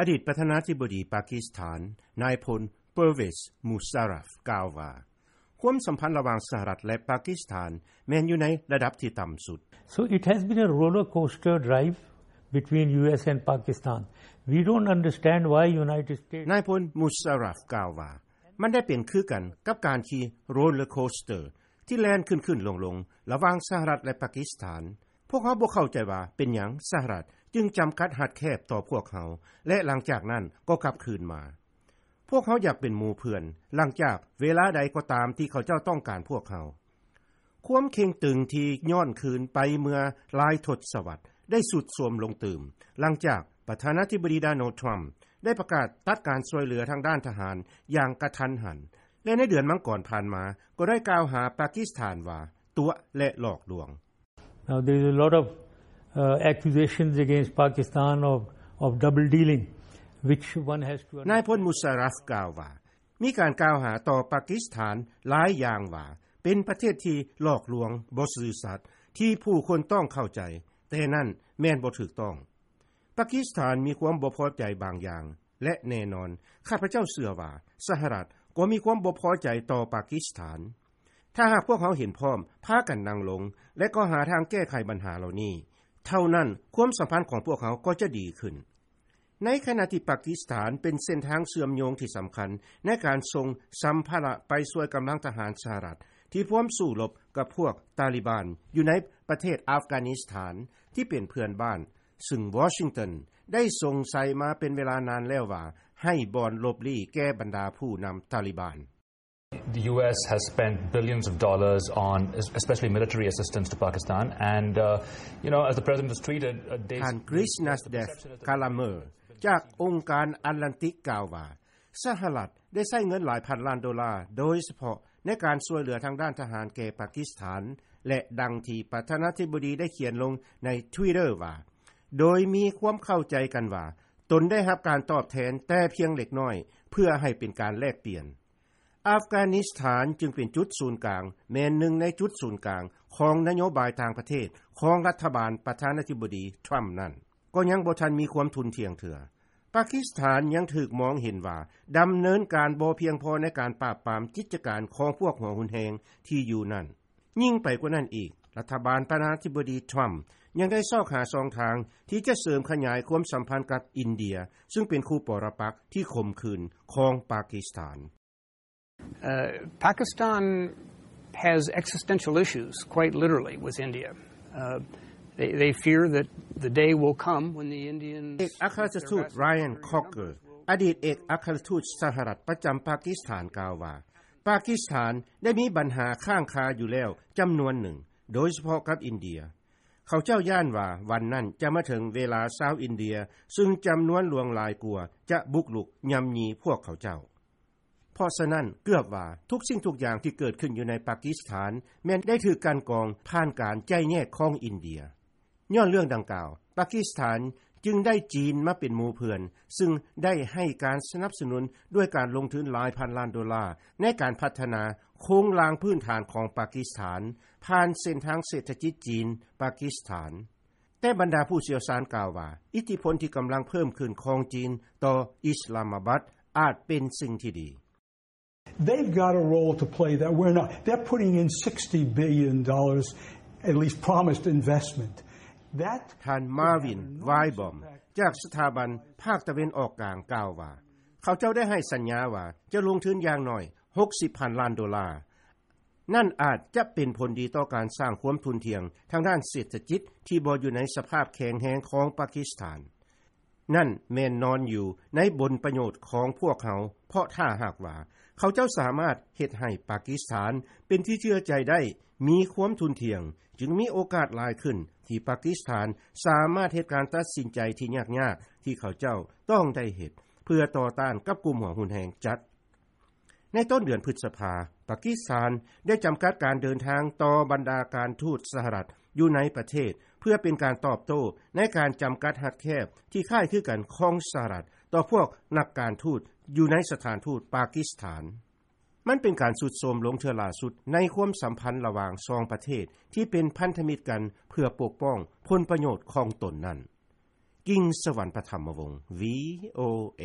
ອະດີດປະທານາທິບໍດີປາກິສຖານ ນາຍພົນ ເປີເວສ ມູຊາຣັຟ ກ່າວວ່າ ຄວາມສຳພັນລະຫວ່າງສະຫະລັດ ແລະ ປາກິສຖານ ແມ່ນຢູ່ໃນລະດັບທີ່ຕ່ຳສຸດ. So it has been a roller coaster drive between U S and Pakistan. We don't understand why United States ນາຍພົນ ມູຊາຣັຟ ກ່າວວ່າ ມັນໄດ້ເປັນຄືກັນກັບການຂີ່ໂຣລເລີໂຄສເຕີ ທີ່ແລ່ນຂຶ້ນໆລົງໆ ລະຫວ່າງສະຫະລັດ ແລະ ປາກິສຖານ. ພວກເຮົາບໍ່ເຂົ້າໃຈວ່າເປັນຫຍັງສະຫະລັດຈຶ່ງຈຳກັດຮັດແຄບຕໍ່ພວກເຮົາ ແລະ ຫຼັງຈາກນັ້ນກໍກັບຄືນມາ. ພວກເຮົາຢາກເປັນໝູ່ເພື່ອນ ຫຼັງຈາກເວລາໃດກໍຕາມທີ່ເຂົາເຈົ້າຕ້ອງການພວກເຮົາ. ຄວາມເຄັ່ງຕຶງທີ່ຍ້ອນຄືນໄປເມື່ອຫຼາຍທົດສະວັດ ໄດ້ຊຸດໂຊມລົງຕື່ມ ຫຼັງຈາກປະທານາທິບໍດີ ໂດນັລ ທຣຳ ໄດ້ປະກາດຕັດການຊ່ວຍເຫຼືອທາງດ້ານທະຫານຢ່າງກະທັນຫັນ ແລະ ໃນເດືອນມັງກອນຜ່ານມາ ກໍໄດ້ກ່າວຫາປາກິສຖານວ່າ ຕົວະ ແລະ ຫຼອກລວງ. Now, there is a lot of, uh, accusations against Pakistan of, of double dealing, which one has to ນາຍພົນ ມູຊາຣັຟ ກ່າວວ່າ ມີການກ່າວຫາຕໍ່ປາກິສຖານຫຼາຍຢ່າງວ່າ ເປັນປະເທດທີ່ຫຼອກລວງ, ບໍ່ຊື່ສັດ, ທີ່ຜູ້ຄົນຕ້ອງເຂົ້າໃຈ, ແຕ່ນັ້ນແມ່ນບໍ່ຖືກຕ້ອງ. ປາກິສຖານມີຄວາມບໍ່ພໍໃຈບາງຢ່າງ ແລະ ແນ່ນອນ, ຂ້າພະເຈົ້າເຊື່ອວ່າ ສະຫະລັດກໍມີຄວາມບໍ່ພໍໃຈຕໍ່ປາກິສຖານ. ຖ້າຫາກພວກເຮົາເຫັນພ້ອມ, ພາກັນນັ່ງລົງ ແລະ ກໍຫາທາງແກ້ໄຂບັນຫາເຫຼົ່ານີ້, ເທົ່ານັ້ນຄວາມສຳພັນຂອງພວກເຮົາກໍຈະດີຂຶ້ນ. ໃນຂະນະທີ່ປາກິສຖານເປັນເສັ້ນທາງເຊື່ອມໂຍງທີ່ສຳຄັນໃນການສົ່ງສຳພາລະໄປຊ່ວຍກຳລັງທະຫານສະຫະລັດທີ່ພວມສູ້ລົບກັບພວກຕາລີບານຢູ່ໃນປະເທດອັຟການິສຖານທີ່ເປັນເພື່ອນບ້ານ, ຊຶ່ງວໍຊິງຕັນໄດ້ສົງໄສມາເປັນເວລານານແລ້ວວ່າ ໃຫ້ບ່ອນຫຼົບລີ້ແກ່ບັນດາຜູ້ນຳຕາລີບານ. The U S has spent billions of dollars on, especially military assistance to Pakistan. And, uh, you know, as the president has tweeted, uh, they ທ່ານ ກຣິສ ນາສເດຟ ກາລາເມີ ຈາກອົງການແອດແລນຕິກ ກ່າວວ່າ ສະຫະລັດໄດ້ໃຊ້ເງິນຫຼາຍພັນລ້ານໂດລາ ໂດຍສະເພາະໃນການຊ່ວຍເຫຼືອທາງດ້ານທະຫານແກ່ປາກິສຖານ ແລະ ດັ່ງທີ່ປະທານາທິບໍດີໄດ້ຂຽນລົງໃນ Twitter ວ່າ ໂດຍມີຄວາມເຂົ້າໃຈກັນວ່າ ຕົນໄດ້ຮັບການຕອບແທນແຕ່ພຽງເລັກນ້ອຍ ເພື່ອໃຫ້ເປັນການແລກປ່ຽນ. ອັຟການິສຖານຈຶ່ງເປັນຈຸດສູນກາງ, ແມ່ນໜຶ່ງໃນຈຸດສູນກາງຂອງນະໂຍບາຍຕ່າງປະເທດຂອງລັດຖະບານປະທານາທິບໍດີທຣຳນັ້ນ, ກໍຍັງບໍ່ທັນມີຄວາມທຸ່ນທ່ຽງເທື່ອ. ປາກິສຖານຍັງຖືກມອງເຫັນວ່າດຳເນີນການບໍ່ພຽງພໍໃນການປາບປາມກິດຈະການຂອງພວກຫົວຮຸນແຮງທີ່ຢູ່ນັ້ນ. ຍິ່ງໄປກວ່ານັ້ນອີກ, ລັດຖະບານປະທານາທິບໍດີທຣຳຍັງໄດ້ຊອກຫາຊ່ອງທາງທີ່ຈະເສີມຂະຫຍາຍຄວາມສຳພັນກັບອິນເດຍ, ຊຶ່ງເປັນຄູ່ປໍລະປັກທີ່ຂົມຂືນຂອງປາກິສຖານ. Uh, Pakistan has existential issues, quite literally, with India. Uh, they, they fear that the day will come when the Indians ເອກອັກຄະລັດຖະທູດ Ryan Crocker ອະດີດເອກອັກຄະລັດຖະທູດສະຫະລັດປະຈຳປາກິສຖານ ກ່າວວ່າ ປາກິສຖານໄດ້ມີບັນຫາຄ້າງຄາຢູ່ແລ້ວຈຳນວນໜຶ່ງ, ໂດຍສະເພາະກັບອິນເດຍ. ເຂົາເຈົ້າຢ້ານວ່າວັນນັ້ນຈະມາເຖິງເວລາຊາວອິນເດຍ ຊຶ່ງຈຳນວນຫຼວງຫຼາຍກວ່າຈະບຸກລຸກຍ່ຳຢີພວກເຂົາເຈົ້າ. ເພາະສະນັ້ນ ເກືອບວ່າທຸກສິ່ງທຸກຢ່າງທີ່ເກີດຂຶ້ນຢູ່ໃນປາກິສຖານ ແມ່ນໄດ້ຖືກກັ່ນກອງຜ່ານການໄຈແຍກຂອງອິນເດຍ. ຍ້ອນເລື່ອງດັ່ງກ່າວ, ປາກິສຖານຈຶ່ງໄດ້ຈີນມາເປັນໝູ່ເພື່ອນ, ຊຶ່ງໄດ້ໃຫ້ການສະໜັບສະໜູນດ້ວຍການລົງທຶນຫຼາຍພັນລ້ານໂດລາ ໃນການພັດທະນາໂຄງລ່າງພື້ນຖານຂອງປາກິສຖານ ຜ່ານເສັ້ນທາງເສດຖະກິດຈີນ-ປາກິສຖານ. ແຕ່ບັນດາຜູ້ຊ່ຽວຊານກ່າວວ່າ ອິດທິພົນທີ່ກຳລັງເພີ່ມຂຶ້ນຂອງຈີນຕໍ່ອິສລາມາບັດອາດເປັນສິ່ງທີ່ດີ. They've got a role to play that we're not. They're putting in sixty billion dollars, at least promised investment. That ທ່ານ ມາວິນ ວາຍບອມ ຈາກສະຖາບັນພາກຕາເວັນອອກກາງກ່າວວ່າ ເຂົາເຈົ້າໄດ້ໃຫ້ສັນຍາວ່າຈະລົງທຶນຢ່າງໜ້ອຍຫົກສິບພັນລ້ານໂດລາ. ນັ້ນອາດຈະເປັນຜົນດີຕໍ່ການສ້າງຄວາມທຸ່ນທ່ຽງທາງດ້ານເສດຖະກິດທີ່ບໍ່ຢູ່ໃນສະພາບແຂງແຮງຂອງປາກິສຖານ. ນັ້ນແມ່ນນອນຢູ່ໃນຜົນປະໂຫຍດຂອງພວກເຮົາ, ເພາະຖ້າຫາກວ່າເຂົາເຈົ້າສາມາດເຮັດໃຫ້ປາກິສຖານເປັນທີ່ເຊື່ອໃຈໄດ້, ມີຄວາມທຸ່ນທ່ຽງ, ຈຶ່ງມີໂອກາດຫຼາຍຂຶ້ນທີ່ປາກິສຖານສາມາດເຮັດການຕັດສິນໃຈທີ່ຍາກໆທີ່ເຂົາເຈົ້າຕ້ອງໄດ້ເຮັດ ເພື່ອຕໍ່ຕ້ານກັບກຸ່ມຫົວຮຸນແຮງຈັດ. ໃນຕົ້ນເດືອນພຶດສະພາ, ປາກິສຖານໄດ້ຈຳກັດການເດີນທາງຕໍ່ບັນດາການທູດສະຫະລັດຢູ່ໃນປະເທດ ເພື່ອເປັນການຕອບໂຕ້ໃນການຈຳກັດຮັດແຄບທີ່ຄ້າຍຄືກັນຂອງສະຫະລັດຕໍ່ພວກນັກການທູດຢູ່ໃນສະຖານທູດປາກິສຖານ. ມັນເປັນການຊຸດໂຊມລົງເທື່ອຫຼ້າສຸດໃນຄວາມສຳພັນລະຫວ່າງສອງປະເທດທີ່ເປັນພັນທະມິດກັນເພື່ອປົກປ້ອງຜົນປະໂຫຍດຂອງຕົນນັ້ນ. ກິ່ງສະຫວັນ ປະຖຳມະວົງ ວີໂອເອ